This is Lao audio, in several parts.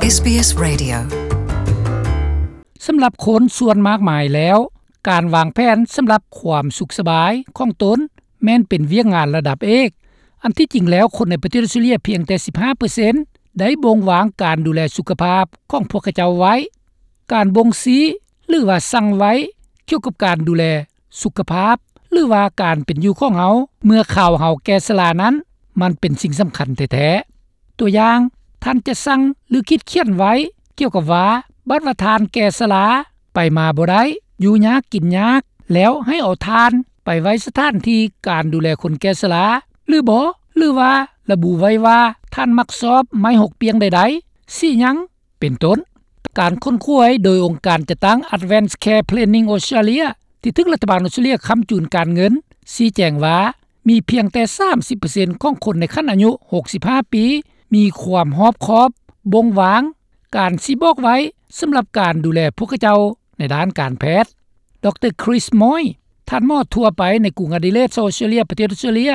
ເອສບີເອສ Radio. ສຳລັບຄົນສ່ວນມາກມາຍແລ້ວ, ການວາງແຜນສຳລັບຄວາມສຸກສະບາຍຂອງຕົນແມ່ນເປັນວຽກງານລະດັບເອກ. ອັນທີ່ຈິງແລ້ວ, ຄົນໃນປະເທດອອສເຕຣເລັຽພຽງແຕ່ສິບຫ້າເປີເຊັນໄດ້ບົ່ງວາງການດູແລສຸຂະພາບຂອງພວກເຂົາເຈົ້າໄວ້. ການບົ່ງຊີ້ ຫຼືວ່າສັ່ງໄວ້ກ່ຽວກັບການດູແລສຸຂະພາບ ຫຼືວ່າການເປັນຢູ່ຂອງເຮົາເມື່ອຄາວເຮົາແກ່ຊະລານັ້ນ ມັນເປັນສິ່ງສຳຄັນແທ້ໆ. ຕົວຢ່າງ, ທ່ານຈະສັ່ງ ຫຼື ຂີດຂຽນໄວ້ກ່ຽວກັບວ່າ ບັດວ່າທ່ານແກ່ຊະລາ, ໄປມາບໍ່ໄດ້, ຢູ່ຍາກກິນຍາກ, ແລ້ວໃຫ້ເອົາທ່ານໄປໄວ້ສະຖານທີ່ການດູແລຄົນແກ່ຊະລາ ຫຼືບໍ່? ຫຼືວ່າລະບຸໄວ້ວ່າທ່ານມັກຊອບໄມ້ຫົກປ່ຽງໃດໆ, ສີຫຍັງ? ເປັນຕົ້ນ. ການຄົ້ນຄວ້າໂດຍອົງການຈັດຕັ້ງ Advance Care Planning Australia ທີ່ຖືກລັດຖະບານອອສເຕຣເລັຽຄ້ຳຈູນການເງິນ ຊີ້ແຈງວ່າ ມີພຽງແຕ່ສາມສິບເປີເຊັນຂອງຄົນໃນຂັ້ນອາຍຸຫົກສິບຫ້າປີ ມີຄວາມຮອບຄອບບົ່ງວາງການຊີ້ບອກໄວ້ສຳລັບການດູແລພວກເຂົາເຈົ້າໃນດ້ານການແພດ. ດຣ. Chris Moy ທ່ານໝໍທົ່ວໄປໃນກຸງອາດີເລດ ອອສເຕຣເລັຽ ປະເທດອອສເຕຣເລັຽ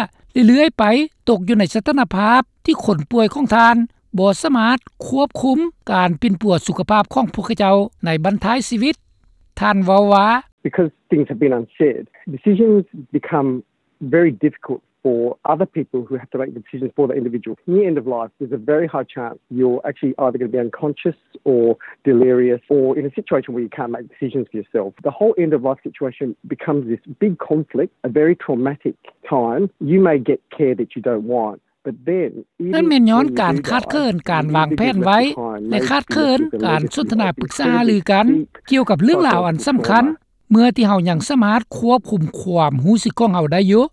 ເລື້ອຍໆໄປຕົກຢູ່ໃນສະຖານະພາບທີ່ຄົນປ່ວຍຂອງທ່ານບໍ່ສາມາດຄວບຄຸມການປິ່ນປົວສຸຂະພາບຂອງພວກເຂົາເຈົ້າໃນບັ້ນທ້າຍຊີວິດ. ທ່ານເວົ້າວ່າ Because things have been unsaid, decisions become very difficult for other people who have to make the decisions for the individual. Near end of life, there's a very high chance you're actually either going to be unconscious or delirious or in a situation where you can't make decisions for yourself. The whole end of life situation becomes this big conflict, a very traumatic time. You may get care that you don't want, but then ນັ້ນແມ່ນຍ້ອນການຂາດເຂີນການວາງແຜນໄວ້ ແລະ ຂາດເຂີນການສົນທະນາປຶກສາຫາລືກັນກ່ຽວກັບເລື່ອງລາວອັນສຳຄັນ ເມື່ອທີ່ເຮົາຍັງສາມາດຄວບຄຸມຄວາມຮູ້ສຶກຂອງເຮົາໄດ້ຢູ່.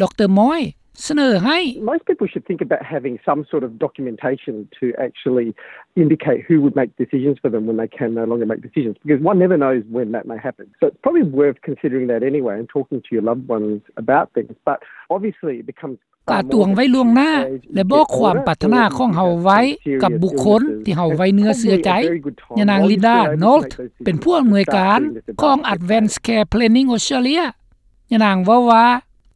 ດຣ. Moy ສະເໜີໃຫ້ Most people should think about having some sort of documentation to actually indicate who would make decisions for them when they can no longer make decisions, because one never knows when that may happen. So it's probably worth considering that anyway and talking to your loved ones about things. But obviously it becomes ກະຕວງໄວ້ລ່ວງໜ້າ ແລະ ບອກຄວາມປາດຖະໜາຂອງເຮົາໄວ້ກັບບຸກຄົນທີ່ເຮົາໄວ້ເນື້ອເຊື່ອໃຈ. ຍານາງ Linda Nolt ເປັນຜູ້ອຳນວຍການຂອງ Advance Care Planning Australia. ຍານາງເວົ້າວ່າ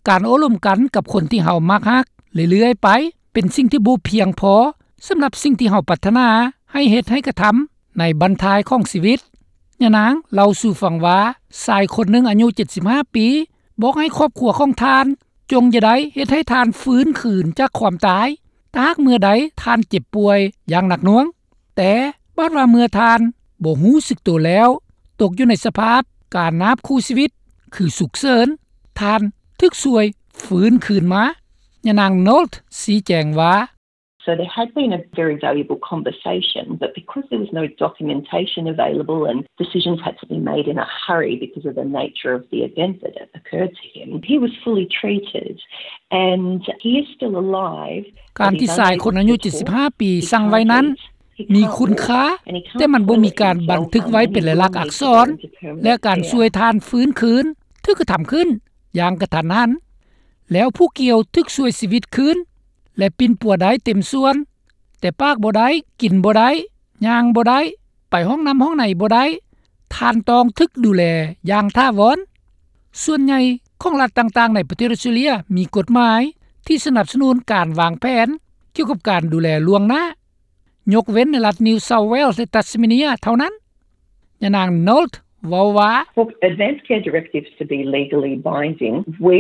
ການໂອ້ລົມກັນກັບຄົນທີ່ເຮົາມັກຮັກເລື້ອຍໆໄປ ເປັນສິ່ງທີ່ບໍ່ພຽງພໍສຳລັບສິ່ງທີ່ເຮົາປາດຖະໜາໃຫ້ເຮັດໃຫ້ກະທຳໃນບັ້ນທ້າຍຂອງຊີວິດ. ຍານາງເລົ່າສູ່ຟັງວ່າ ຊາຍຄົນໜຶ່ງອາຍຸເຈັດສິບຫ້າປີ ບອກໃຫ້ຄອບຄົວຂອງທ່ານ ຈົ່ງຢ່າໄດ້ເຮັດໃຫ້ທ່ານຟື້ນຄືນຈາກຄວາມຕາຍ ຖ້າຫາກເມື່ອໃດທ່ານເຈັບປ່ວຍຢ່າງໜັກໜ່ວງ. ແຕ່ບາດວ່າເມື່ອທ່ານບໍ່ຮູ້ສຶກໂຕແລ້ວ, ຕົກຢູ່ໃນສະພາບການນາບຄູ່ຊີວິດ ຄືສຸກເສີນ, ທ່ານຖືກຊ່ວຍຟື້ນຄືນມາ. ຍານາງ Nolt ຊີ້ແຈງວ່າ So there had been a very valuable conversation, but because there was no documentation available and decisions had to be made in a hurry because of the nature of the event that occurred to him, he was fully treated and he is still alive. ການທີ່ຊາຍຄົນອາຍຸເຈັດສິບຫ້າປີສັ່ງໄວ້ນັ້ນ ມີຄຸນຄ່າ, ແຕ່ມັນບໍ່ມີການບັນທຶກໄວ້ເປັນລາຍລັກອັກສອນ ແລະ ການຊ່ວຍທ່ານຟື້ນຄືນຖືກກະທຳຂຶ້ນຢ່າງກະທັນຫັນ, ແລ້ວຜູ້ກ່ຽວຖືກຊ່ວຍຊີວິດຄືນ ແລະ ປິ່ນປົວໄດ້ເຕັມສ່ວນ, ແຕ່ປາກບໍ່ໄດ້, ກິນບໍ່ໄດ້, ຍ່າງບໍ່ໄດ້, ໄປຫ້ອງນ້ຳຫ້ອງໃນບໍ່ໄດ້, ທ່ານຕ້ອງຖືກດູແລຢ່າງຖາວອນ. ສ່ວນໃຫຍ່ຂອງລັດຕ່າງໆໃນປະເທດອອສເຕຣເລັຽມີກົດໝາຍທີ່ສະໜັບສະໜູນການວາງແຜນກ່ຽວກັບການດູແລລ່ວງໜ້າ, ຍົກເວັ້ນໃນລັດ New South Wales ແລະ Tasmania ເທົ່ານັ້ນ. ຍານາງ Nolt ເວົ້າວ່າ For advance care directives to be legally binding, we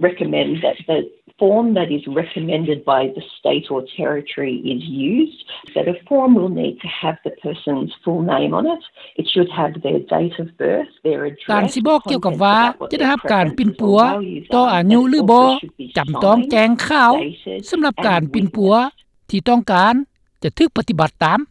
recommend that the form that is recommended by the state or territory is used. So the form will need to have the person's full name on it. It should have their date of birth, their address, ການຊິບອກກ່ຽວກັບວ່າຈະໄດ້ຮັບການປິ່ນປົວຕໍ່ອາຍຸຫຼືບໍ່ ຈຳຕ້ອງແຈ້ງຂ່າວສຳລັບການປິ່ນປົວທີ່ຕ້ອງການຈະຖືກປະຕິບັດຕາມ.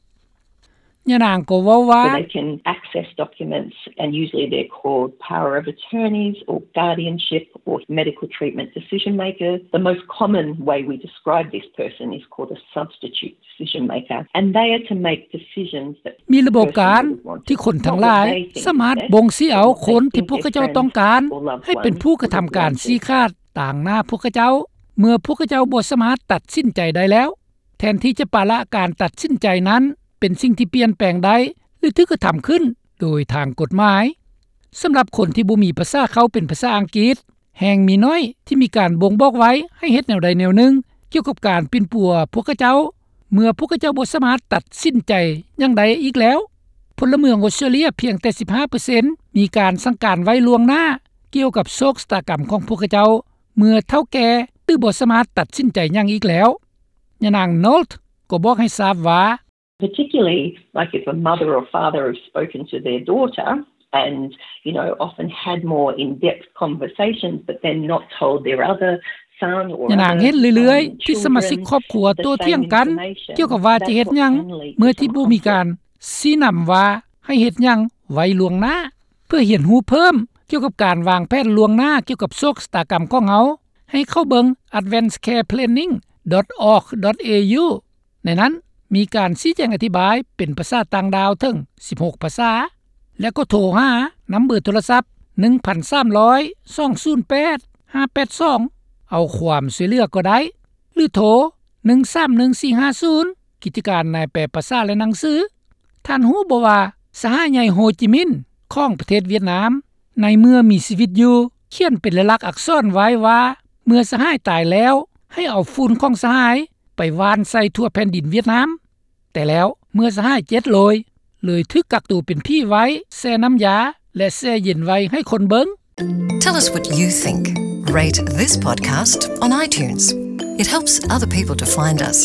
ຍານາງກໍເວົ້າວ່າ So they can access documents, and usually they're called power of attorneys or guardianship or medical treatment decision makers. The most common way we describe this person is called a substitute decision maker, and they are to make decisions that ມີລະບົບການທີ່ຄົນທັງຫຼາຍສາມາດບົ່ງຊີ້ເອົາຄົນທີ່ພວກເຂົາເຈົ້າຕ້ອງການໃຫ້ເປັນຜູ້ກະທຳການຊີ້ຂາດຕາງໜ້າພວກເຂົາເຈົ້າ ເມື່ອພວກເຂົາເຈົ້າບໍ່ສາມາດຕັດສິນໃຈໄດ້ແລ້ວ. ແທນທີ່ຈະປະລະການຕັດສິນໃຈນັ້ນເປັນສິ່ງທີ່ປ່ຽນແປງໄດ້ ຫຼື ຖືກກະທຳຂຶ້ນໂດຍທາງກົດໝາຍ. ສຳລັບຄົນທີ່ບໍ່ມີພາສາເຄົ້າເປັນພາສາອັງກິດ, ແຮ່ງມີໜ້ອຍທີ່ມີການບົ່ງບອກໄວ້ໃຫ້ເຮັດແນວໃດແນວໜຶ່ງກ່ຽວກັບການປິ່ນປົວພວກເຂົາເຈົ້າ ເມື່ອພວກເຂົາເຈົ້າບໍ່ສາມາດຕັດສິນໃຈຫຍັງໄດ້ອີກແລ້ວ. ພົນລະເມືອງອອສເຕຣເລັຽພຽງແຕ່ສິບຫ້າເປີເຊັນ ມີການສັ່ງການໄວ້ລ່ວງໜ້າ ກ່ຽວກັບໂຊກຊະຕາກຳຂອງພວກເຂົາເຈົ້າ ເມື່ອເຖົ້າແກ່ ຫຼືບໍ່ສາມາດຕັດສິນໃຈຫຍັງອີກແລ້ວ. ຍານາງ Nolt ກໍບອກໃຫ້ຊາບວ່າ particularly like if a mother or father have spoken to their daughter and you know often had more in-depth conversations but then not told their other son or ຍານາງເຫັນເລື້ອຍໆ ທີ່ສະມາຊິກຄອບຄົວໂຕ້ຖຽງກັນ ກ່ຽວກັບວ່າຈະເຮັດຫຍັງ ເມື່ອທີ່ບໍ່ມີການຊີ້ນຳວ່າໃຫ້ເຮັດຫຍັງໄວ້ລ່ວງໜ້າ ເພື່ອຮຽນຮູ້ເພີ່ມກ່ຽວກັບການວາງແຜນລ່ວງໜ້າ ກ່ຽວກັບໂຊກຊະຕາກຳຂອງເຮົາ ໃຫ້ເຂົ້າເບິ່ງ advanced care planning dot org dot au ໃນນັ້ນມີການຊີ້ແຈງອະທິບາຍເປັນພາສາຕ່າງດ້າວເຖິງສິບຫົກພາສາ ແລະກໍໂທຫານຳເບີໂທລະສັບ ໜຶ່ງພັນສາມຮ້ອຍ ສອງສູນແປດ ຫ້າແປດສອງ ເອົາຄວາມຊ່ວຍເຫຼືອກໍໄດ້ ຫຼືໂທ ໜຶ່ງສາມໜຶ່ງສີ່ຫ້າສູນ ກິດຈະການນາຍແປພາສາ ແລະໜັງສື. ທ່ານຮູ້ບໍ່ວ່າ ສະຫາຍໃຫຍ່ໂຮຈິມິນ ຂອງປະເທດຫວຽດນາມ ໃນເມື່ອມີຊີວິດຢູ່ ຂຽນເປັນລາຍລັກອັກສອນໄວ້ວ່າ ເມື່ອສະຫາຍຕາຍແລ້ວ ໃຫ້ເອົາຝຸ່ນຂອງສະຫາຍໄປຫວ່ານໃສ່ທົ່ວແຜ່ນດິນຫວຽດນາມ. ແຕ່ແລ້ວເມື່ອສະຫາຍເຈັດໂລຍ ເລີຍຖືກກັກໂຕເປັນຜີໄວ້ ແຊ່ນ້ຳຢາ ແລະແຊ່ເຢັນໄວ້ໃຫ້ຄົນເບິ່ງ. Tell us what you think. Rate this podcast on iTunes. It helps other people to find us.